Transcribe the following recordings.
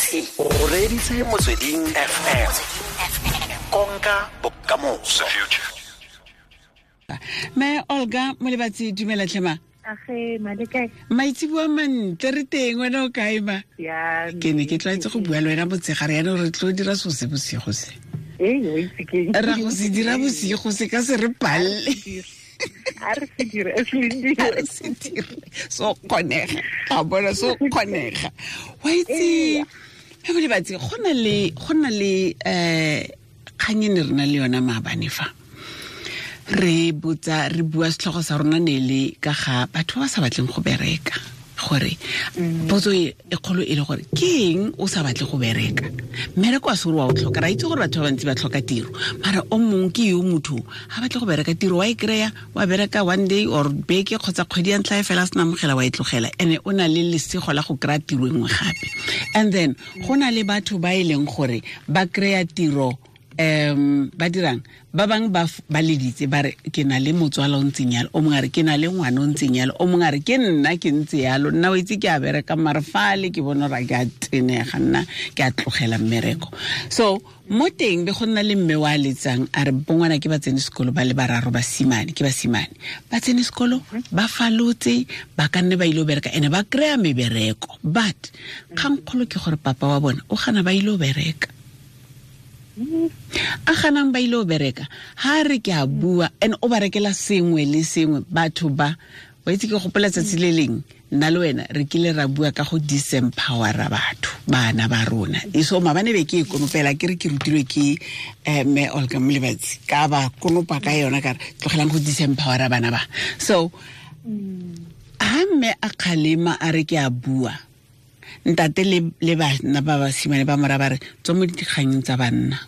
O reditse Motsweding FM, konka bokamoso. Me Olga Molebatsi, dumela tlhema. Age, malekae? Maitseboa mantle, re teng, wena o kae ma? Ya. Ke ne ke tlwaetse go bua le wena motshegare, yaanong re tlo dira so se bosigo se. Ee, o itse ke. Ra go se dira bosigo se ka se re palle. A re se dire, a se dire. A re se dire. So kgonega. Ga bona so kgonega. Wa itse, me Molebatsi, go na le kgang e ne re na le yona maabane fa. Re botsa, re bua, setlhogo sa rona ne le ka ga batho ba ba sa batleng go bereka, gore potso e kgolo e le gore ke eng o sa batle go bereka? Mmereko a se gore wa o tlhoka, ra itse gore batho ba bantsi ba tlhoka tiro, mara o mongwe ke yo motho ga batle go bereka. Tiro wa e kry-a, wa bereka one day or beke kgotsa kgwedi ya ntlha e fela, a sena amogela, wa e tlogela, and o na le lesego la go kry-a tiro e nngwe gape. And then go na le batho ba e leng gore ba kry-a tiro, ba dirang, ba bang ba leditse, ba re ke na le motswala o ntseng yalo, o mongwe a re ke na le ngwana o ntseng yalo, o mongwe a re ke nna ke ntse yalo, nna o itse ke a bereka, mare fale ke bona gore ke a tenega, nna ke a tlogela mmereko. So mo teng be go nna le mme wa letsang, a re bongwana ke ba tsene sekolo ba le bararo, basimane ke basimane, ba tsene sekolo, ba falotse, ba ka nne ba ile go bereka ene ba kry-a mebereko, but kgangkgolo ke gore papa wa bona o gana ba ile go bereka, a ganang ba ile go bereka. Ha re ke a bua, and o ba rekela sengwe le sengwe batho ba. Wa itse, ke gopola tsatsi le leng nna le wena re kile ra bua ka go disempowera batho, bana ba rona. E so mabane be ke e konopela, ke re ke rutilwe ke mme Olga Molebatsi, ka ba konopa ka yona, ka re tlogelang go disempowera bana ba. So ha mme a kgalema, a re ke a bua, ntate le bana ba basimane ba mora ba re tswa mo dikganyeng tsa banna.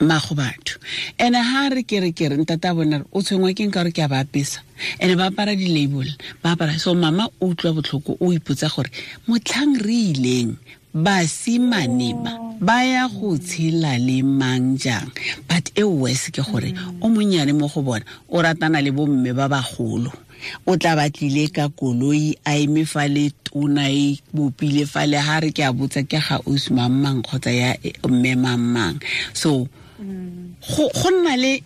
Mago batho ene ha re ke re ntate a bona re o tshwengwa ke nka gore ke a ba apesa, ene ba apara di-label, ba apara. So mama o utlwa botlhoko, o ipotsa gore motlhang re ileng, basimane ba ba ya go tshela le mang jang? But e worse ke gore o monnyane mo go bona o ratana le bomme ba bagolo, o tla batlile ka koloi, a eme fa le tona e bopile fa le, ha re ke a botsa, ke ga ausi mang kgotsa ya mme mang. So go nna le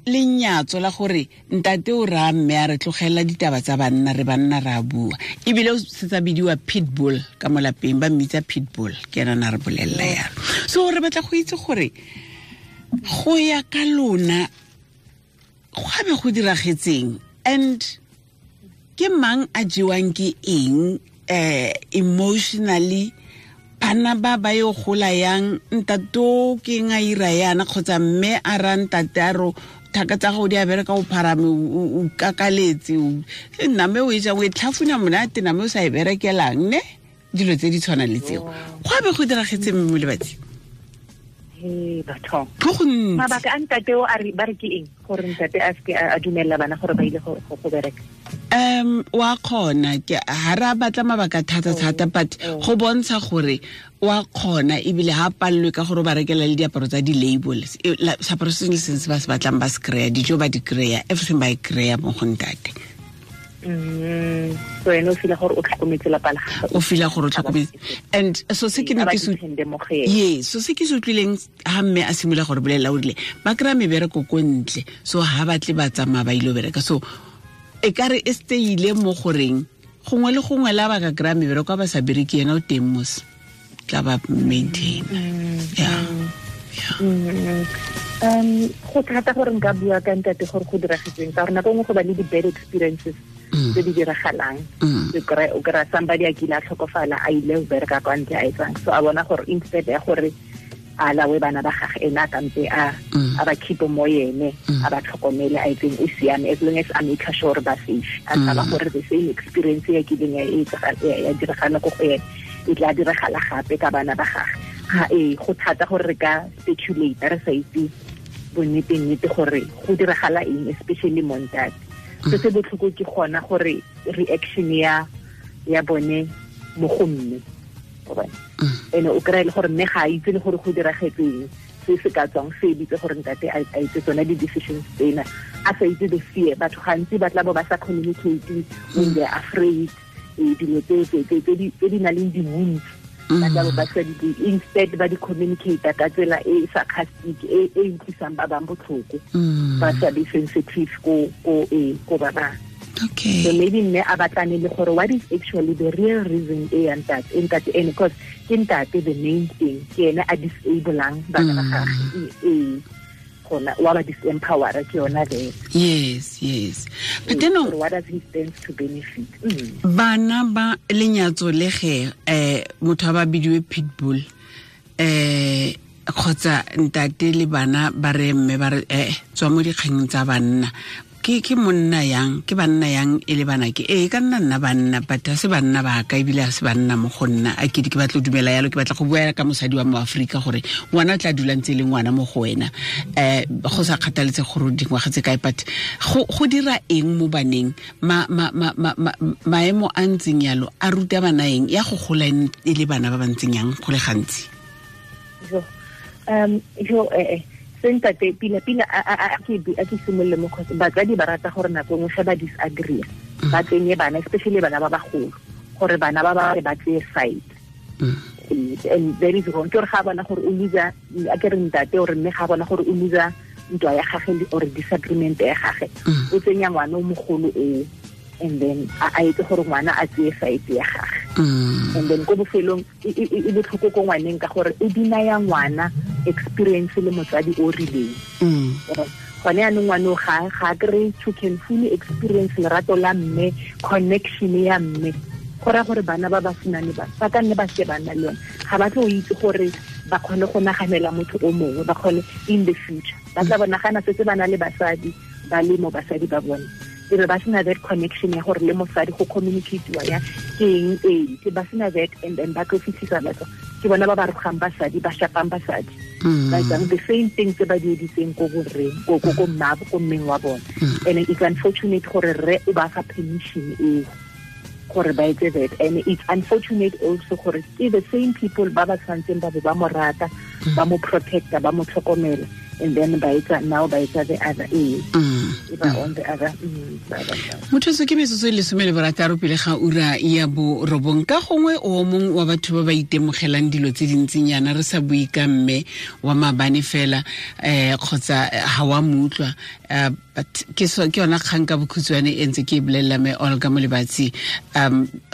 lenyatso la gore ntate o raya mme a re tlogela ditaba tsa banna, re banna re a bua, ebile o setsa bidiwa pitbull ka mo lapeng, ba mmitsa pitbull, ke ena na re bolelela yalo. So re batla go itse gore go ya ka lona go be go diragetseng, and ke mang a jewang ke eng emotionally? Bana ba ba yo gola yang, ntate o ke eng a ira yana, kgotsa mme a ra ntate a ro thaka tsa gago di a bereka, o pharame, o kakaletse, name o e jang, o e tlhafuna monate, name o sa e berekelang, ne dilo tse di tshwanang le tseo. Go a be go diragetse, mme Molebatsi? He, batho. Go gontsi. Mabaka a ntate o a re ba re ke eng gore ntate a seke a dumella bana gore ba ile go bereka? Wa kgona ke ha re a batla mabaka thata thata, but go bontsha gore wa kgona, ebile ha pallwe ka gore o ba rekela le diaparo tsa di-label. Seaparo se sengwe le sengwe se ba se batlang ba se kry-a, dijo ba di kry-a, everything ba e kry-a mo go ntate. So ene o feel gore o tlhokometse lapa la gagwe. O feel gore o tlhokometse, and so se ke ne A ba ke se depende mo go ene. Ye, so se ke se utlwileng ha mme a simolola gore bolelela, o rile ba kry-a mebereko ko ntle, so ha batle ba tsamaya ba ile go bereka. So e ka re e stayile mo goreng gongwe le gongwe la ba ka kry-a mebereko, a ba sa bereke, yena o teng mos tla ba maintain, yeah. Go thata gore nka bua ka ntate gore go diragetseng, ka gore nako nngwe go ba le di-bad experiences tse di diragalang. O kry-a somebody a kile a tlhokofala, a ile go bereka kwa ntle, a etsang so, a bona gore instead ya gore a lawe bana ba gage, ene a kampe a a ba keep mo yene, a ba tlhokomele, a etseng, o siame as long as a make sure ba safe. A tshaba gore the same experience ya kileng ya ya diragala ko go ene e tla diragala gape ka bana ba gage. Ga ee, go thata gore re ka speculate re sa itse bonnete-nnete gore go diragala eng, especially mo ntate. Se se botlhoko ke gona gore reaction ya bone mo go mme, wa bona? Ene o kry-e le gore mme ga a itse le gore go diragetseng, se se ka tswang se editse gore ntate a itse tsona di-decisions tsena, a sa itse the fear. Batho gantsi ba tla bo ba sa communicate when they're afraid, dilo tse di nang le di-wounds. Ba tla ba sa di instead ba di communicate ka tsela e sarcastic e e utlwisang ba bang botlhoko. Ba sa be sensitive ko ba bang. Okay. So maybe mme a batlane le gore what is actually the real reason e ya ntate ene, because ke ntate the main thing ke ene a disableang bana ba gagwe e gona wa ba disempower ke yona there. Yes. But then what does he stand to benefit? Bana ba lenyatso le ge motho a ba bidiwe pitbull kgotsa ntate le bana ba re mme ba re tswa mo dikgeng tsa banna. Ke monna yang ke banna yang e le bana ke e ka nna banna but ha se banna ba ka ebile ha se banna mo go nna a ke ke batla dumela yalo ke batla go bua ka mosadi wa mo Afrika gore ngwana tla dula ntse le ngwana mo go wena go sa kgathaletse gore dingwaga tse kae but go dira eng mo baneng ma maemo a ntseng yalo a ruta bana eng ya go gola e le bana ba ba ntseng yang go le gantsi. Sentate pila a ke simolole mo kgotsa batsadi ba rata gore nako nngwe ge ba disagree ba tsenye bana especially bana ba bagolo gore bana ba ba ba tseye side. And that is wrong. Ke gore ga bona gore o loser a ke re ntate ore mme ga bona gore o loser ntwa ya gagwe or disagreement ya gagwe o tsenya ngwana o mogolo o and then a etse gore ngwana a tseye side ya gagwe. And then ko bofelong e botlhoko ko ngwaneng ka gore o dinaya ngwana experience le motsadi o rileng. Gone yaanong ngwane ga kry to can fully experience lerato la mme, connection ya mme. Go raya gore bana ba basimane ba ka nne ba se ba nna le yone ga ba tlo itse gore ba kgone go naganela motho o mongwe, ba kgone in the future ba tla ba nagana setse ba na le basadi ba le mo basadi ba bone e be ba sena that connection ya gore le mosadi go communicate-iwa ya ke eng e ke ba sena that and then ba tlo fitlhisa batho ke bona ba ba rogang basadi ba shapang basadi ba etsang the same thing tse ba di editseng ko borreng ko mmabo ko mmeng wa bone. And it's unfortunate gore rre o ba fa permission eo gore ba etse that, and it's unfortunate also gore ke the same people ba ba tshwantseng ba bo ba mo rata ba mo protecta ba mo tlhokomela and then ba etsa now ba etsa the other ba on the other. Motho se ke metsotso e 16 pele ga ura ya 9 ka gongwe o mongwe wa batho ba ba itemogelang dilo tse dintsinyana re sa bue ka mme wa mabane fela kgotsa ha wa mutlwa but ke yona kgang ka bokhutshwane e ntse ke e bolelela me Olga Molebatsi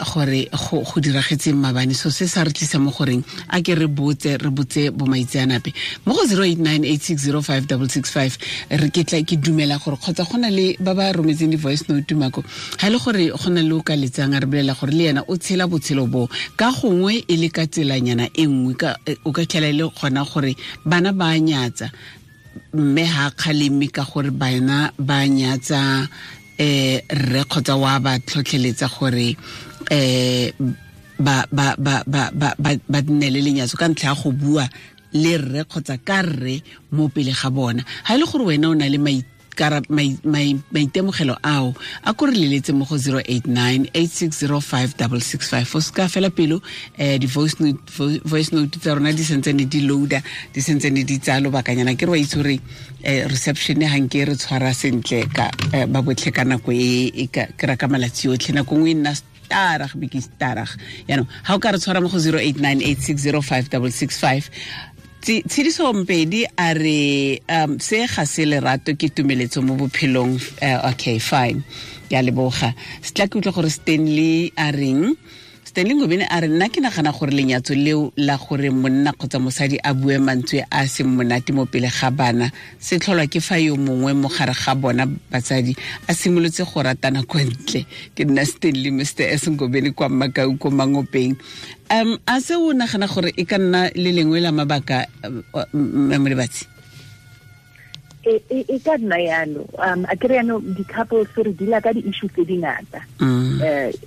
gore go diragetseng mabane so se sa re tlisa mo goreng a ke re botse bomaitseanape mo go 0898605665 re ke tla ke dumela gore kgotsa go na le ba ba rometseng di-voice note mako ha le gore go na le o ka letsang a re bolela gore le yena o tshela botshelo bo ka gongwe e le ka tselanyana e nngwe o ka tlhela e le gona gore bana ba nyatsa mme ha kgaleme ka gore bana ba nyatsa rre kgotsa wa ba tlhotlheletsa gore ba ba ba ba ba nne le lenyatso ka ntlha ya go bua le rre kgotsa ka rre mo pele ga bona. Ha e le gore wena o na le maitemogelo ao a ko re leletse mo go 0898605665 o seka fela pelo di-voice note tsa rona di sentsene di loader di sentsene di tsaya lobakanyana ke re wa itse gore reception ga nke re tshwara sentle ka ba botlhe ka nako e ke ra ka malatsi otlhe nako nngwe e nna starag be ke starag yaanong ga o ka re tshwara mo go 0898605665 Tshidiso Mpedi a re se ga se lerato ke tumeletso mo bophelong. Okay, fine, ke a leboga. Se tla ke utlwa gore Stanley a reng. Stanley Ngobeni a re nna ke nagana gore lenyatso leo la gore monna kgotsa mosadi a bue mantswe a seng monate mo pele ga bana se tlholwa ke fa yo mongwe mo gare ga bona batsadi a simolotse go ratana kwa ntle. Ke nna Stanley Mr S Ngobeni kwa Makau ko Mangopeng. A se o nagana gore e ka nna le lengwe la mabaka Molebatsi? E ka nna yalo. A kry yaanong di-couples re deala ka di-issue tse dingata.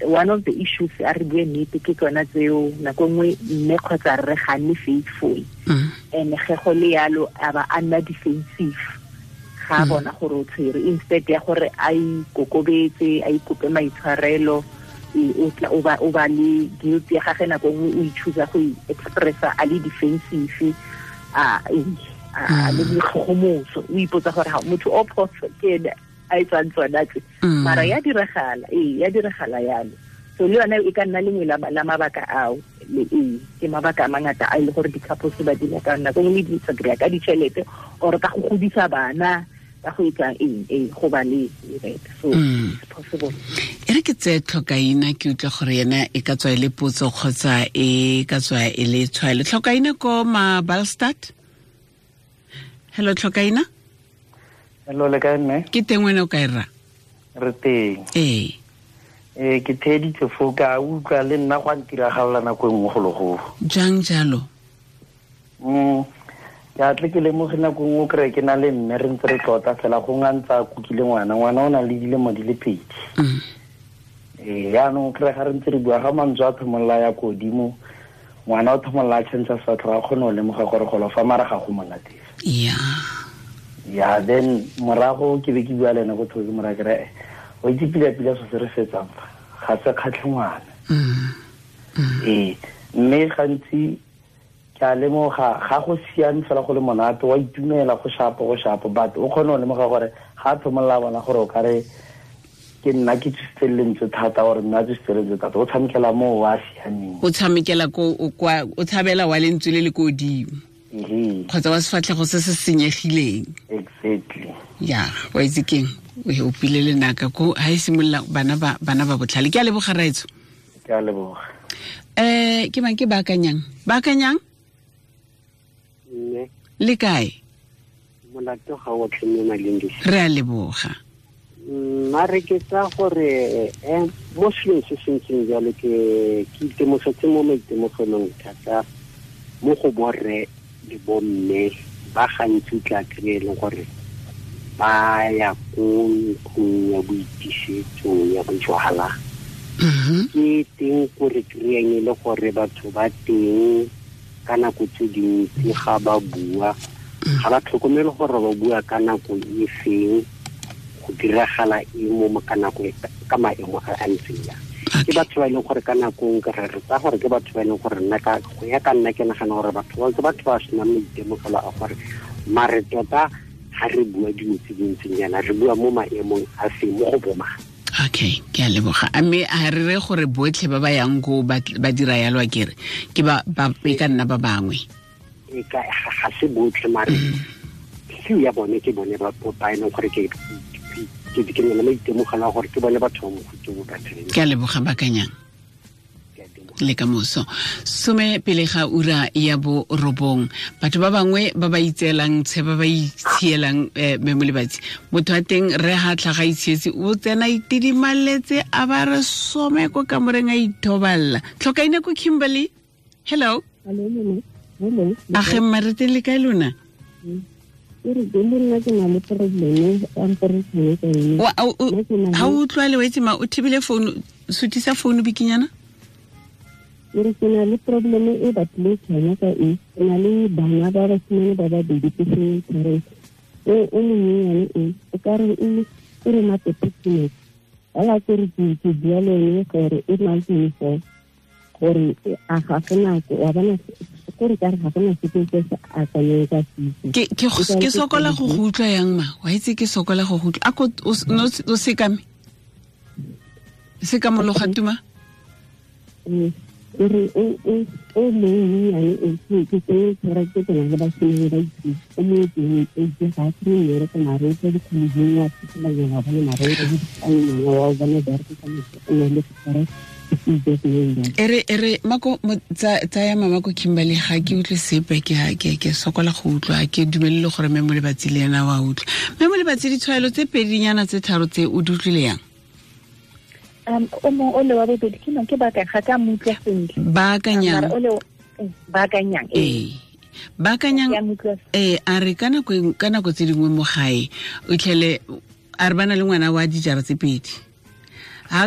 One of the issues a re bue nnete ke tsona tseo nako nngwe mme kgotsa rre ga nne faithful and ge go le yalo a ba a nna defensive ga a bona gore o tshwere instead ya gore a ikokobetse a ikope maitshwarelo o ba le guilt ya gage nako nngwe o ichoose go expressa a le defensive a le boikgogomoso o ipotsa gore ga motho o phoso ke ene a etsang tsona tse mara ya diragala ya diragala yalo. So le yone e ka nna lengwe la mabaka ao le e ke mabaka a mangata a ile gore di-couples ba dila ka nako nngwe di disagree ka ditšhelete or ka go godisa bana ka go etsa eng e go ba le right. So it's possible. E re ke tseye Tlhokaina, ke utlwa gore yena e ka tswa e le potso kgotsa e ka tswa e le tshwaelo. Tlhokaina ko Mabalstad. Hello Tlhokaina. Hello, le kae mme? Ke teng, wena o kae rra? Re teng. Ee. Ke theeditse foo, ka utlwa le nna go a ntiragalela nako e nngwe gologolo. Jang jalo? Ke a tle ke lemoge nako nngwe o kry-e ke na le mme re ntse re tlota fela go nga ntse a kukile ngwana, ngwana o na le dilemo di le 2. Yaanong o kry-e ga re ntse re bua ga mantswe a thomolola ya ko godimo, ngwana o thomolola a change sefatlhego, a kgone go lemoga gore golo fa mara ga go monate. Ya then morago ke be ke bua le ene go thoke mora ke re o itse pila-pila so se re fetsang fa ga se kgatlhe ngwana. Mme gantsi ke a lemoga ga go siame fela go le monate, wa itumela go shapo but o kgone go lemoga gore ga a thomolola bona gore o kare ke nna ke tsositse lentswe thata gore nna tsositse lentswe thata, o tshamekela moo wa siameng, o tshamekela ko o tshabela wa lentswe le le ko godimo kgotsa wa sefatlhego se se senyegileng. Exactly. Ya wa itse keng, o opile lenaka ko ha e simolola bana ba botlhale. Ke a leboga raetso. Ke a leboga. Ke mang ke baakanyang? Baakanyang? Mme. Le kae? Molato ga o tlhe mme Malindisi. Re a leboga. Mare ke tsa gore mo selong se se ntseng jalo ke itemogetse mo maitemogelong thata mo go borre le bomme ba gantsi tla kry-e leng gore ba ya ko ntlong ya boitisetso ya bojwala. Ke teng ko re kry-ang e le gore batho ba teng ka nako tse dintsi ga ba bua, ga ba tlhokomele gore ba bua ka nako e feng, go diragala eng mo ka nako ka maemo a a ntseng jang. Ke batho ba e leng gore ka nako nngwe re tsaya gore ke batho ba e leng gore nna ka go ya ka nna ke nagana gore batho ba ke batho ba senang maitemogelo a gore mare tota ga re bua dilo tse dintseng jaana re bua mo maemong a feng mo go bomang. Okay, ke a leboga. A mme a re re gore botlhe ba ba yang ko ba dira yalo a kere ke ba e ka nna ba bangwe. E ka ga se botlhe mare few ya bone ke bone ba e leng gore ke ke ne le maitemogelo a gore ke bone batho ba mofuta o ba tshwereng. Ke a leboga Bakanyang. Le ka moso 10 pele ga ura ya 9. Batho ba bangwe ba ba itseelang tshe ba ba itshielang mme Molebatsi motho wa teng re ha tlhaga itshietse o tsena itidimaletse a ba re some ko kamoreng a ithoballa. Tlhokaina ko Kimberley. Hello. Hello. A ge mma re teng le kae lona? Ha o utlwa le wetse ma o thibile phone, sutisa phone bikinyana. Ke na le problem e batlile tshwana ka e ke na le bana ba basimane ba babedi ke seng parents. O monyenyane e o ka re o re matepetsene fela ke re ke bua le ene gore e na le gore a ga gona wa bona gore ka re ga gona sepe se se akanyeng ka setso. Ke sokola go go utlwa yang ma wa itse ke sokola go go utlwa a ko o sekame sekamologa tuma. Re o monyenyane e ke tsere ke tsena le basimane ba itse o mo teng e ke ga ke ne re ka mare ke di khuleng ya tsela ya ba le mare re di tsana wa bona ba re ka mo le tsere. Ere mako tsaya mama ko Kimberley ga ke utlwe sepe ke sokola go utlwa ke dumelele gore mme Molebatsi le ena wa utlwa. Mme Molebatsi ditshwaelo tse pedinyana tse tharo tse o di utlwile yang? O mong o le wa bobedi ke ke baka ga ka mo utlwa sentle. Baakanyang. Baakanyang. Ee. Baakanyang. Ee, a re ka nako tse dingwe mo gae o tlhele a re bana le ngwana wa dijara tse pedi.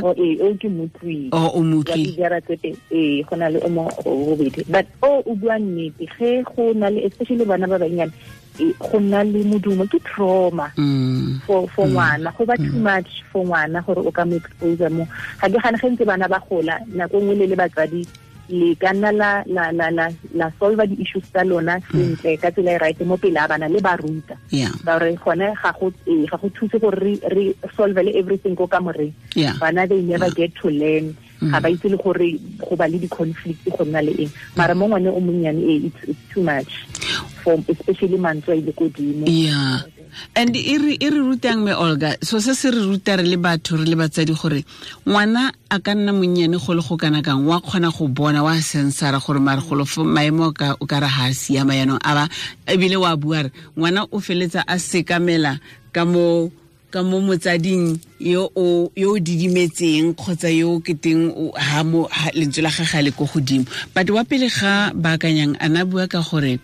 O ke motlwi. O motlwi. Dijara tse pedi. Ee, go na le o mong o bobedi. But o bua nnete ge go na le especially bana ba bannyane go nna le modumo ke trauma for ngwana go ba too much for ngwana gore o ka mo expose mo ga ke gane ge ntse bana ba gola nako nngwe le batsadi le ka nna la solve di-issues tsa lona sentle ka tsela e right mo pele a bana le ba ruta ba re gone ga go thuse gore re solve le everything ko kamoreng. Bana they never get to learn Ga ba itse le gore go ba le di-conflict go nna le eng. Mara mo ngwane o monnyane it's too much for especially mantswe a ile kodimo. Yeah. And e re rutang me Olga, so se se re ruta re le batho re le batsadi gore ngwana a ka nna monnyane go le go kana kang, wa kgona go bona, wa sensara gore mare golo maemo ka o ka re ha siama yanong, a ba ebile wa bua re ngwana o feletsa a sekamela ka mo motsading yo o didimetseng kgotsa yo keteng ha mo lentswe la gagwe le ko godimo. But wa pele ga baakanyang a na bua ka gore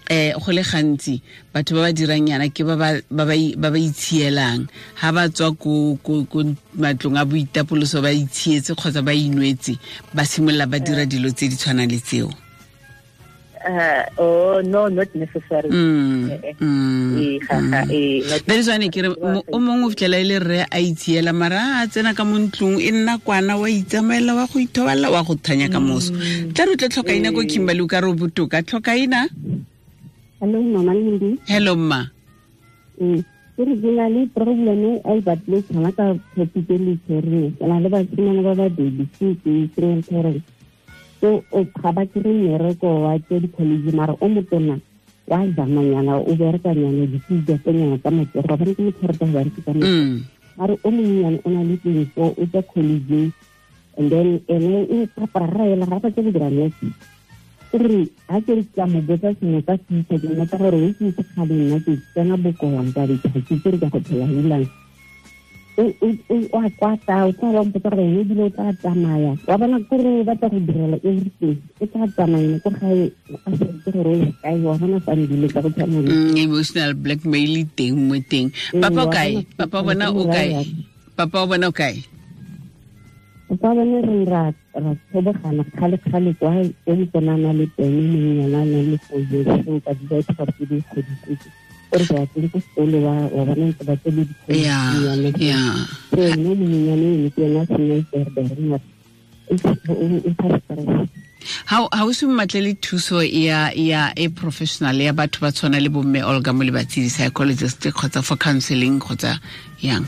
go le gantsi batho ba ba dirang yana ke ba ba itshielang ha ba tswa ko matlong a boitapoloso ba itshietse kgotsa ba inwetse, ba simolola ba dira dilo tse di tshwanang le tseo. Oh no, not necessarily. That is why ke re o mongwe o fitlhela e le rre a itshiela, mara a tsena ka mo ntlong e nna kwana, wa itsamaela, wa go ithoballa, wa go thanya ka moso. Tla re tle tlhokaina ko Kimberley, o ka re o botoka. Tlhokaina. Hello Mama Lindi. Hello mma. Ke re ke na le problem e batle tshwana ka topic e le tshwereng. Ke na le basimane ba babedi ke single parent. So o ga ba kry mmereko wa tse di-college, mara o motona wa zamanyana, o berekanyana ditijatonyana tsa matsogo, ga bane ke motho rata go berekisa matsogo. Mara o monnyane o na le 24, o tswa college, and then ene o prepara ga ba tse go dira nurse. Re ha ke re ka mo botsa sengwe ka future, ke mmotsa gore o itse kgale nna ke tsena bokoang ka ditšha, ke tse re ka go phela helang. O a kwata, o tla ba mpotsa gore ene ebile o tla tsamaya, wa bona kore o batla go direla everything, o tla tsamaya ko gae a sa itse gore o ya kae, wa bona fa ndile ka go tshwana le emotional blackmail teng mo teng. Papa o kae? Papa bona o kae? Papa o bona o kae? Papa bone re ra tshobogana kgale-kgale kwa o motona le teng monnyana a nang le 4 years, so ka di ba gore ke di godisitse. O re ba tsene ko sekolo wa bona ntse ba tsene dikolo. So ene monnyane ene ke ena a senya berbereng Ha o se mmatlele thuso ya e professional ya batho ba tshwana le bomme Olga Molebatsi, di-psychologist kgotsa for counseling kgotsa yang?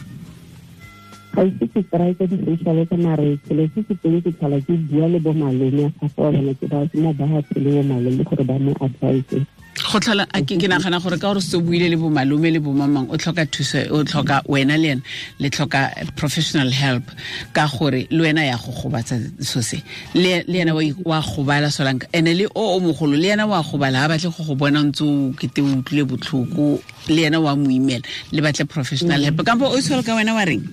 Ga ise ke try ka di-social worker, mare selo se se teng ke tlhola ke bua le bo malome a gagwe, wa bona ke ba mo ba le bo malome gore ba mo advise. Go tlhola ke nagana gore ka gore se buile le bo malome le bo mamang, o tlhoka thuso, o tlhoka wena le ena le tlhoka professional help, ka gore le wena ya go gobatsa so se le ena wa gobala solanka, ene le o mogolo le ena wa gobala, ha batle go go bona ntse o kete o utlwile botlhoko, le ena wa mo imela, le batle professional help. Kampo o tshwere ka wena wa reng?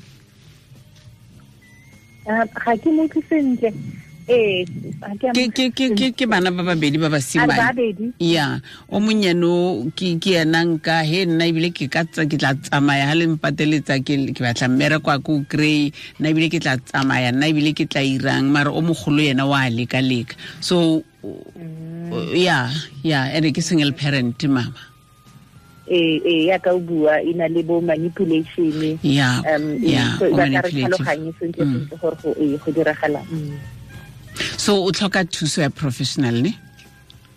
Ga ke mo utlwe sentle. Ke bana ba babedi ba basimane. Ya, o monnyane ke ena nka he nna ebile ke ka ke tla tsamaya ha le mpateletsa ke batla mmereko a ko kry, nna ebile ke tla tsamaya, nna ebile ke tla irang, mara o mogolo yena wa leka-leka. So yeah, ene ke single parent mama. Ya ka o bua e na le bo manipulation. So ba ka re tlhaloganye sentle sentle gore go diragala. So o tlhoka thuso ya professional ne?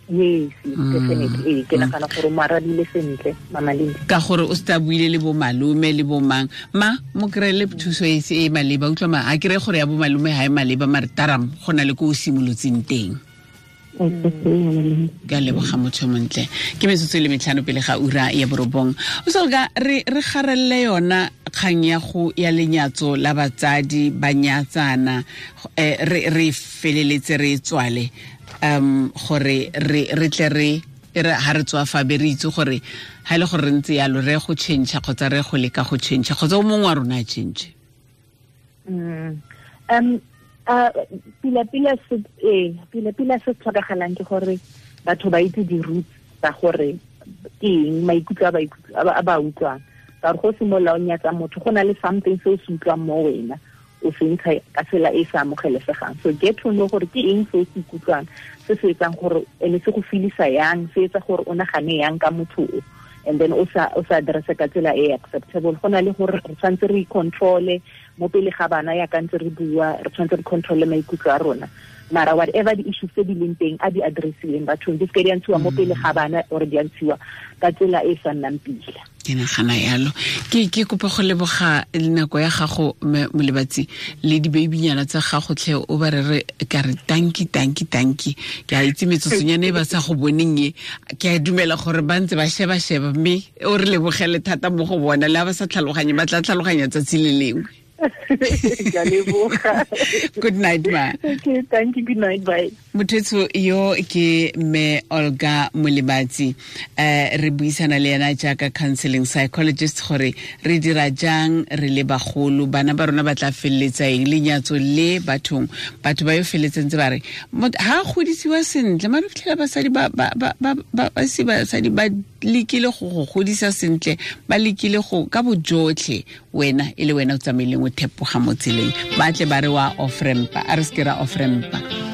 Yes, definitely. Ke nagana gore mo arabile sentle Mama Lindi. Ka gore o sta buile le bo malome le bo mang, ma mo kry-ele thuso e se e maleba, utlwa ma a kry gore ya bo malome ha e maleba, mare taram go na le ko o simolotseng teng. Ka leboga motho montle. Ke metsotso e le 5 pele ga ura ya 9. O solga re garelle yona kgang ya go ya lenyatso la batsadi ba nyatsana, re feleletse re tswale gore re tle re ha re tswa fa be re itse gore ha ile gore re ntse yalo re go change kgotsa re go leka go change kgotsa o mongwe wa rona a change. Pila se tlhokagalang ke gore batho ba itse di-roots tsa gore ke eng maikutlo a ba utlwang. Ka gore go simolola o nyatsa motho, go na le something se o se utlwang mo wena, o se ntsha ka tsela e sa amogelesegang. So get to know gore ke eng se o se ikutlwang, se se etsang gore ene se go feelisa yang, se etsa gore o nagane yang ka motho o, and then o sa address ka tsela e acceptable. Go na le gore re tshwanetse re control-e mo pele ga bana ya ka ntse re bua, re tshwanetse re control-e maikutlo a rona. Mara whatever the issues tse di leng teng a di addressiweng bathong, di seke di a ntshiwa mo pele ga bana or di a ntshiwa ka tsela e sa nnang pila. Ke nagana yalo. Ke kopa go leboga nako ya gago, Molebatsi, le dibeibinyana tsa gago tlhe, o ba re ka re tanki tanki tanki. Ke a itse metsotsonyana e ba sa go boneng e, ke a dumela gore ba ntse ba sheba-sheba, mme o re lebogele thata mo go bona, le ha ba sa tlhaloganye ba tla tlhaloganya tsatsi le lengwe. Good night, ma. Okay, thank you. Good night, bye. Mothetso yo ke mme Olga Molebatsi, re buisana le ena jaaka counseling psychologist gore re dira jang re le bagolo, bana ba rona ba tla feleletsa eng, lenyatso le bathong, batho ba yo feleletseng tse ba re ha godisiwa sentle, mare fitlhela basadi ba ba ba ba ba se basadi ba lekile go godisa sentle, ba lekile go ka bojotlhe, wena e le wena o tsamaileng o thepoga mo tseleng, ba tle ba re wa off-rampa, a re se ke ra off-rampa.